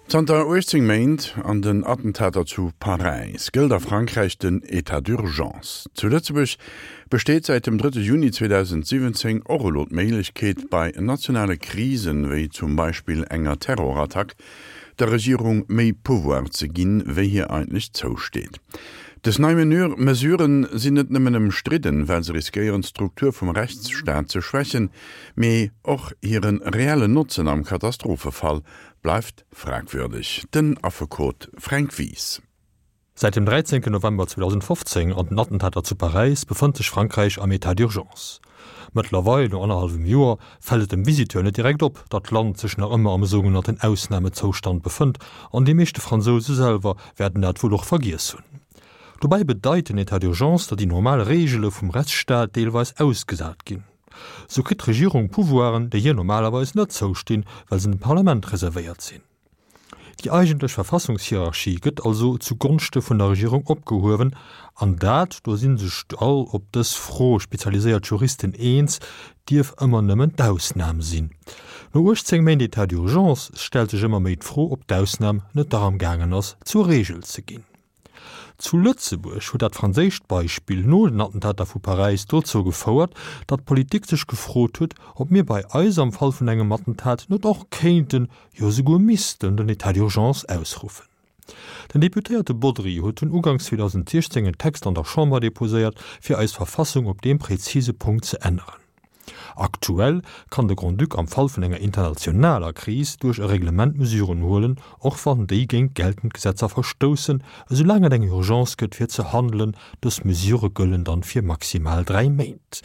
Zanter 18 Méint an den Attentater zu Paräis gëllt a Frankräich den Etat d'urgence. Zu Lëtzebuerg besteet säit dem drëtte Juni 2017 och elo d'Méiglechkeet, bei nationale Krisen, wéi zum Beispill enger Terrorattack, der Regierung méi Pouvoir ze ginn, wéi hir eigentlech zousteet. Dës nei Mesuren sinn net nëmmen ëmstridden, well se riskéieren, d'Struktur vum Rechtsstaat ze schwächen, mee och hire reellen Notzen am Katastrophefall bleift fragwürdeg. Den Affekot Fränk Wies. Säit dem 13 November 2015 an den Attentater zu Paräis befënnt sech Frankräich am Etat d'urgence. Mëttlerweil, no annerhallwem Joer, fält et dem Visiteur net direkt op, datt d'Land sech nach ëmmer am sougenannten Ausnamezoustand befënnt an déi meeschte Fransouse selwer wäerten dat wuel och vergiess hunn. Dobäi bedeit den Etat d'urgence, datt déi normal Reegele vum Rechtsstaat deelweis ausgesat ginn. Sou kritt d'Regierung Pouvoiren, déi hir normalerweis net zoustinn, well se dem Parlament reservéiert sinn. Déi eigentlech Verfassungshierarchie gëtt also zu Gonschte vun der Regierung opgehuewen, an dat, do si sech all op dës Fro spezialiséiert Juristen eens, dierf ëmmer nëmmen d'Ausnam sinn. No 18 Méint Etat d'urgence stellt sech ëmmer méi d'Fro, ob d'Ausnam net dach am gaangen ass, zur Reegel ze ginn. Zu Lëtzebuerg huet dat franséischt Beispill no den Attentater vu Paräis dozou gefouert, datt d'Politik sech gefrot huet, ob mir bei eis am Fall vun engem Attentat net och kéinten, jo esouguer missten den État d'urgence ausruffen. Den Deputéierte Bodry huet dunn uganks 2016 en Text an der Chamber deposéiert, fir eis Verfassung op deem präzise Punkt ze änneren. Aktuell kann de Grand-Duc am Fall vun enger internationaler Kris duerch e Reglement Mesuren huelen, och wann déi géint geltend Gesetzer verstoussen, esoulaang et eng Urgence gëtt fir ze handelen. Dës Mesurë gëllen dann fir maximal 3 Méint.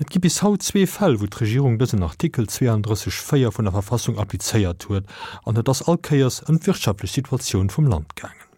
Et gi bis haut zwee Fäll, wou d'Regierung dësen Artikel 32, 4 vun der Verfassung applizéiert huet, an et ass all Kéiers ëm d'wirtschaftlech Situatioun vum Land gaangen.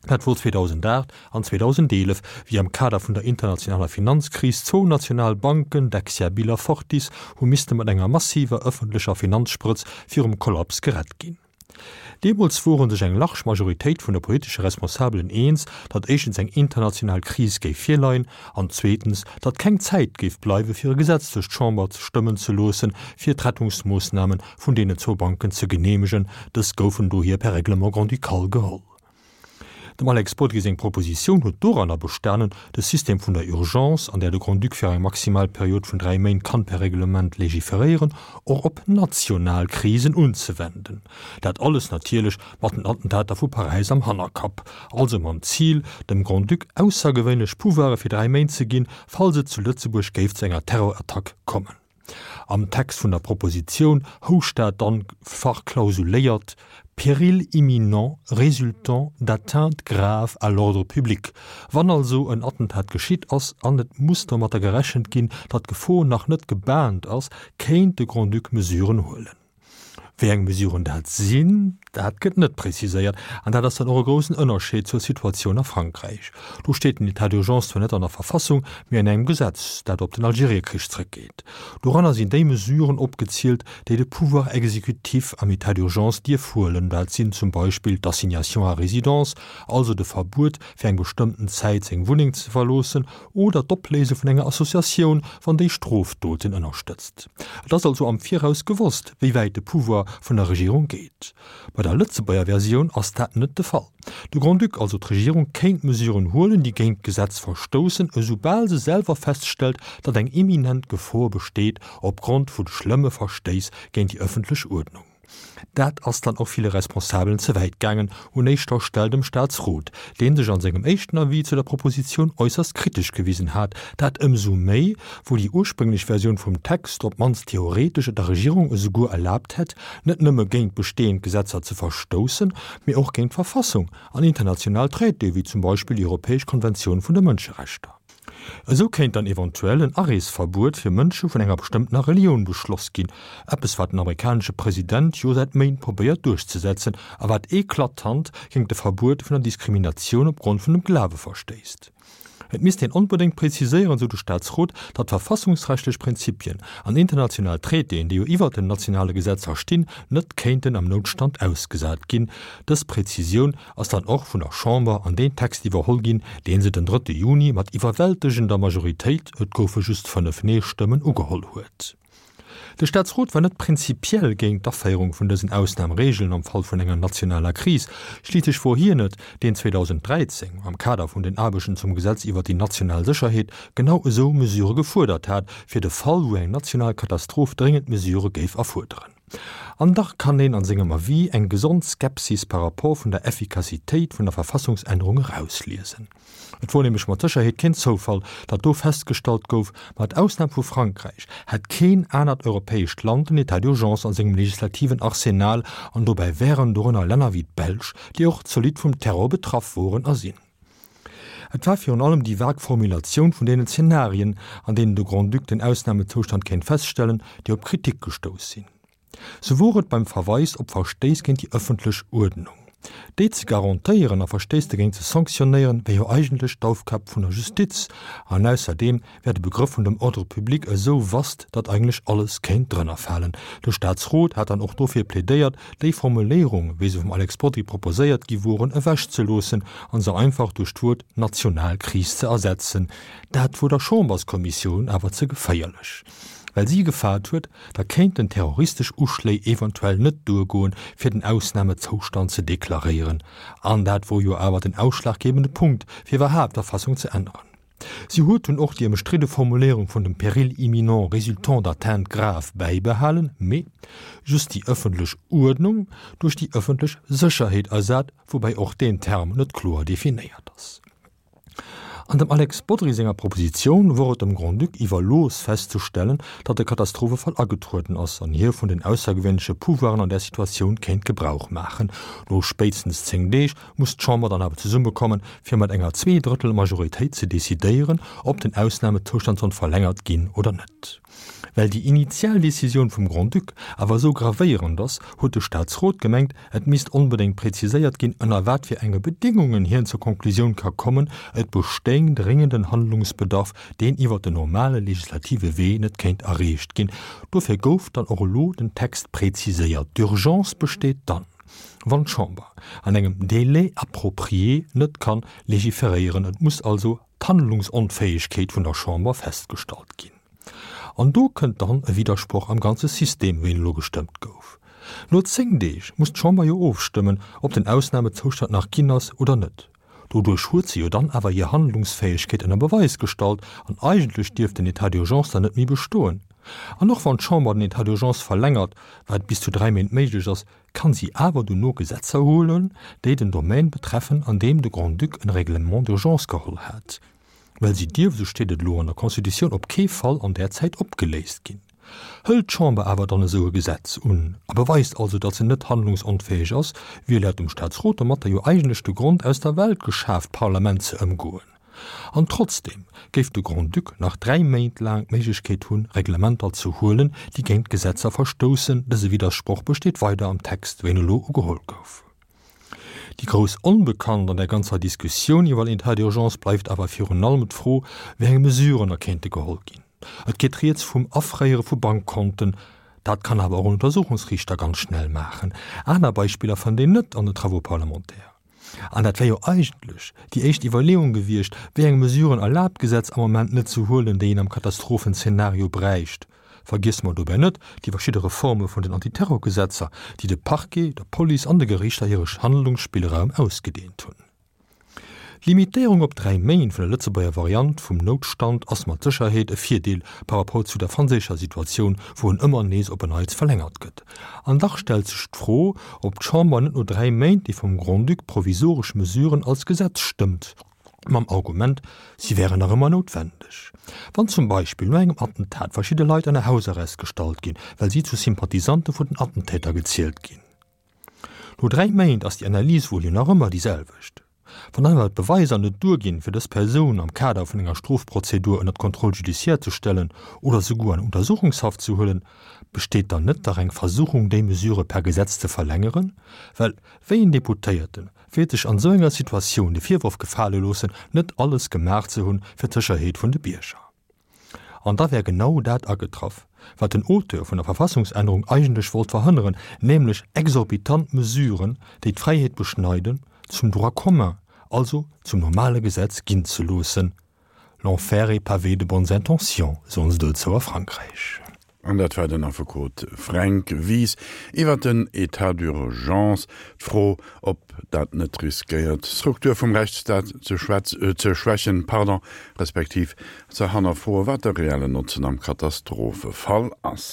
Dat wor 2008 an 2011, wéi am Kader vun der internationaler Finanzkris zwou national Banken, Dexia Bill a Fortis, hu misste mat enger massiver ëffentlecher Finanzsprëtz virum Kollaps gerett ginn. Deemools wore sech eng large Majoritéit vun de politesche Responsabelen eens, datt éischtens eng international Kris géif virleien an zweetens, datt keng Zäit géif bleiwe fir e Gesetz duerch d'Chamber stëmmen ze loossen, fir d'Rettungsmoossname vun deenen zwou Banken ze geneemegen. Dës goufen dohier per Règlement grand-ducal geholl. Dem Alex Bodry seng Propositioun huet doranner bestanen, de System vun der Urgence, an där de Grand-Duc fir eng maximal Period vun 3 Méint kann per Reglement legiferéieren, och op national Krisen unzewenden. Dat alles natierlech mat den Attentater vu Paräis am Hannerkapp, also mam Zil, dem Grand-Duc aussergewéinlech Pouvoire fir 3 Méint ze ginn, falls et zu Lëtzebuerg géif zu enger Terrorattack kommen. Am Text vun der Propositioun housch dat dann verklausuléiert, Péril imminent résultant d'atteintes graves à l'ordre public. Wann also en Attentat geschitt ass an et muss domatter gerechent ginn, datt d'Gefor nach net gebaant ass, kéint de Grand-Duc Mesuren huelen. Wéi eng Mesuren dat sinn, dat gëtt net preziséiert. An dat ass dann och e groussen Ënnerscheed zur Situatioun a Frankräich. Do steet den État d'urgence zwar net an der Verfassung, mee an engem Gesetz, dat op den Algeriekrich zrëckgeet. Doranner sinn déi Mesuren opgezielt, déi de Pouvoir exécutif am État d'urgence dierf huelen. Dat sinn zum Beispill d'Assignation à résidence, also de Verbuet, fir eng bestëmmten Zäit seng Wunneng ze verloossen, oder d'Opléise vun enger Associatioun, wann déi Strofdoten ënnerstëtzt. Et ass also am Viraus gewosst, wéi wäit de Pouvoir vun der Regierung geet. Bei der Lëtzebuerger Versioun ass dat net de Fall. De Grand-Duc, also d'Regierung, kéint Mesuren huelen, déi géint d'Gesetz verstoussen, esoubal se selwer feststellt, datt eng imminent Gefor besteet opgrond vu schlëmme Verstéiss géint déi ëffentlech Uerdnung. Dat ass dann och ville Responsabelen ze wäit gaangen, un éischter Stell dem Staatsrot, dee sech an sengem éischten Avis zu der Propositioun äusserst kritesch gewisen hat. Dat ëmsou méi, wou déi ursprénglech Versioun vum Text op d'mannst theoretesch et der Regierung esouguer erlaabt hätt, net nëmme géint bestehend Gesetzer ze verstoussen, mee och géint d'Verfassung an international Traitéë wéi zum Beispill déi Europäesch Konventioun vun de Mënscherechter. Esou kéint dann eventuell en Areesverbuet fir Mënsche vun enger bestëmmtener Relioun beschloss ginn, eppes wat den amerikanesche President jo säit Méint probéiert duerchzesetzen a wat eklatant géingt de Verbuet vun der Diskriminatioun op Grond vun dem Glawe verstéisst. Et misst een onbedéngt preziséieren, sou de Staatsrot, datt verfassungsrechtlech Prinzipien an international Traitéen, déi jo iwwert den nationale Gesetzer stinn, net kéinten am Noutstand ausgesat ginn. Dës Prezisioun ass dann och vun der Chamber an deen Text iwwerholl ginn, dee se den drëtte Juni mat iwwerwältegender Majoritéit, et goufe just 5 Nee-Stëmmen, ugeholl huet. De Staatsrot war net prinzipiell géint d'Aféierung vun dësen Ausnamregeln am Fall vun enger nationaler Kris. Schliisslech wor hien et, deen 2013, am Kader vun den Aarbechten zum Gesetz iwwer déi national Sécherheet, genau esou Mesure gefuerdert hat, fir de Fall, wou eng national Katastroph dréngend Mesure géif erfuerderen. An dach kann een an sengem Avis eng gesond Skepsis par rapport vun der Effikassitéit vun der Verfassungsännerung erausliesen. Et wor nämlech mat Sécherheet keen Zoufall, datt do festgestallt gouf, mat Ausnam vu Frankräich hätt keen anert europäescht Land den État d'urgence a sengem legislativen Arsenal, an dobäi wären dorënner Länner wéi d'Belsch, déi och zolidd vum Terror betraff woren a sinn. Et war virun allem déi vag Formulatioun vun deenen Zenarien, an deenen de Grand-Duc den Ausnamezoustand kéint feststellen, déi op Kritik gestouss sinn. Sou wor et beim Verweis op Verstéiss géint déi ëffentlech Uerdnung. Déi ze garantéieren a Verstéiss dogéint ze sanktionéieren, wär jo eigentlech d'Aufgab vun der Justiz. An ausserdeem wär de Begrëff vun dem Ordre public esou vast, datt eigentlech alles kéint drënner falen. De Staatsrot hat dann och dofir plädéiert, déi Formuléierung, wéi se vum Alex Bodry proposéiert gi woren, ewechzeloossen a se einfach duerch d'Wuert national Kris ze ersetzen. Dat wor der Chamberskommissioun awer ze geféierlech. Well si gefaart huet, da kéinten terroristesch Uschléi eventuell net duergoen, fir den Ausnamezoustand ze deklaréieren. An dat wor jo awer den ausschlaggebende Punkt, fir iwwerhaapt d'Verfassung ze änneren. Si huet dunn och déi ëmstridde Formuléierung vun dem Péril imminent résultant d'atteintes graves bäibehalen, mee just déi ëffentlech Uerdnung duerch déi ëffentlech Sécherheet ersat, woubäi och deen Term net kloer definéiert ass. An dem Alex Bodry senger Propositioun wor et dem Grand-Duc iwwerlooss festzestellen, datt e Katastrophefall agetrueden ass an hie vun den aussergewéinleche Pouvoiren an där Situatioun kéint Gebrauch maachen. No spéitstens 10 Deeg muss d'Chamber dann awer zesummekommen, fir mat enger Zweedrëttel-Majoritéit ze decidéieren, ob den Ausnamezoustand soll verlängert ginn oder net. Well déi initial Decisioun vum Grand-Duc awer esou gravéierend ass, huet de Staatsrot gemengt, et misst onbedéngt präziséiert ginn, ënner wat fir enge Bedéngungen hien zur Konklusioun ka kommen, et bestéing dréngenden Handlungsbedarf, deen iwwer den normale legislative Wee net kéint erreecht ginn. Dofir gouf dann och elo den Text präziséiert. D'Urgence besteet dann, wann d'Chamber an engem Délai approprié net kann legiferéieren. Et muss also d'Handlungsonfäegkeet vun der Chamber festgestallt ginn. An do kënnt dann e Widdersproch am ganze System, wéi en elo gestëmmt gouf. No 10 Deeg muss d'Chamber jo ofstëmmen, ob den Ausnamezoustand nach ginn ass oder net. Doduerch huet se jo dann awer hir Handlungsfäegkeet ënner Beweis gestallt an eigentlech dierft den État d'urgence dann net méi bestoen. An och wann d'Chamber den État d'urgence verlängert, wat bis zu 3 Méint méiglech ass, kann si awer dono Gesetzer huelen, déi den Domaine betreffen, an deem de Grand-Duc en Règlement d'urgence geholl hat. Well si dierf, esou steet et elo an der Constitutioun, op kee Fall an där Zäit opgeléist ginn. Hëlt d'Chamber awer dann esou e Gesetz un a beweist also, datt se net handlungsonfäeg ass, wier laut dem Staatsrot domatter jo eigentlech de Grond aus der Welt geschaaft, d'Parlament ze ëmgoen. An trotzdeem géif de Grand-Duc nach 3 Méint laang d'Méiglechkeet hunn, Reglementer ze huelen, déi géint d'Gesetzer verstoussen. Dëse Widdersproch besteet weider am Text, wéi en elo ugeholl gouf. Déi grouss Onbekannt an der ganzer Diskussioun iwwer den État d'urgence bleift awer virun allem d'Fro, wéi eng Mesuren da kéinte geholl ginn. Et geet rieds vum Afréiere vu Bankkonten, dat kann awer och en Untersuchungsriichter ganz schnell maachen. Aner Beispiller fënnt een net an den Travaux parlementaires. An dat wär jo eigentlech déi éischt Iwwerleeung gewiescht, wéi eng Mesuren erlaabt d'Gesetz am Moment net ze huelen, déi een am Katastrophenzeenario bräicht. Vergiesse mer dobäi net déi verschidde Reforme vun den Antiterrorgesetzer, déi de Parquet, der Police an de Geriichter hire Handlungsspillraum ausgedeent hunn. D'Limitéierung op 3 Méint vun der Lëtzebuerger Variant vum Noutstand ass mat Sécherheet e Virdeel par rapport zu der franséischer Situatioun, wou en ëmmer nees op en Neits verlängert gëtt. An dach stellt sech d'Fro, ob d'Chamber net no 3 Méint déi vum Grand-Duc provisoresch Mesuren als Gesetz stëmmt, mam Argument, si wären nach ëmmer noutwendeg. Wann zum Beispill no engem Attentat verschidde Leit ënner Hausarrest gestallt ginn, well si zu Sympathisante vun den Attentäter gezielt ginn. No 3 Méint ass déi Analys wuel jo nach ëmmer déi selwecht. Wann awer d'Beweiser net duerginn, fir dës Persoun am Kader vun enger Strofprozedur ënner d'Contrôle judiciaire ze stellen oder souguer an Untersuchungshaft ze huelen, besteet dann net dach eng Versuchung, déi Mesure per Gesetz ze verlängeren? Well wéi en Deputéierte wäert sech an esou enger Situatioun de Virworf gefale loossen, net alles gemaach ze hunn fir d'Sécherheet vun de Bierger? An da wär genau dat agetraff, wat den Auteur vun der Verfassungsännerung eigentlech wollt verhënneren, nämlech exorbitant Mesuren, déi d'Fräiheet beschneiden, zum Droit commun, also zum normale Gesetz ginn ze loossen. L'enfer est pavé de bonnes intentions, soen se dozou a Frankräich. An dat war den Affekot Fränk Wies iwwer den État d'urgence. D'Fro, ob dat net riskéiert, d'Struktur vum Rechtsstaat ze ze schwächen, pardon, respektiv ze hannerfroen, wat de reellen Notzen am Katastrophefall ass.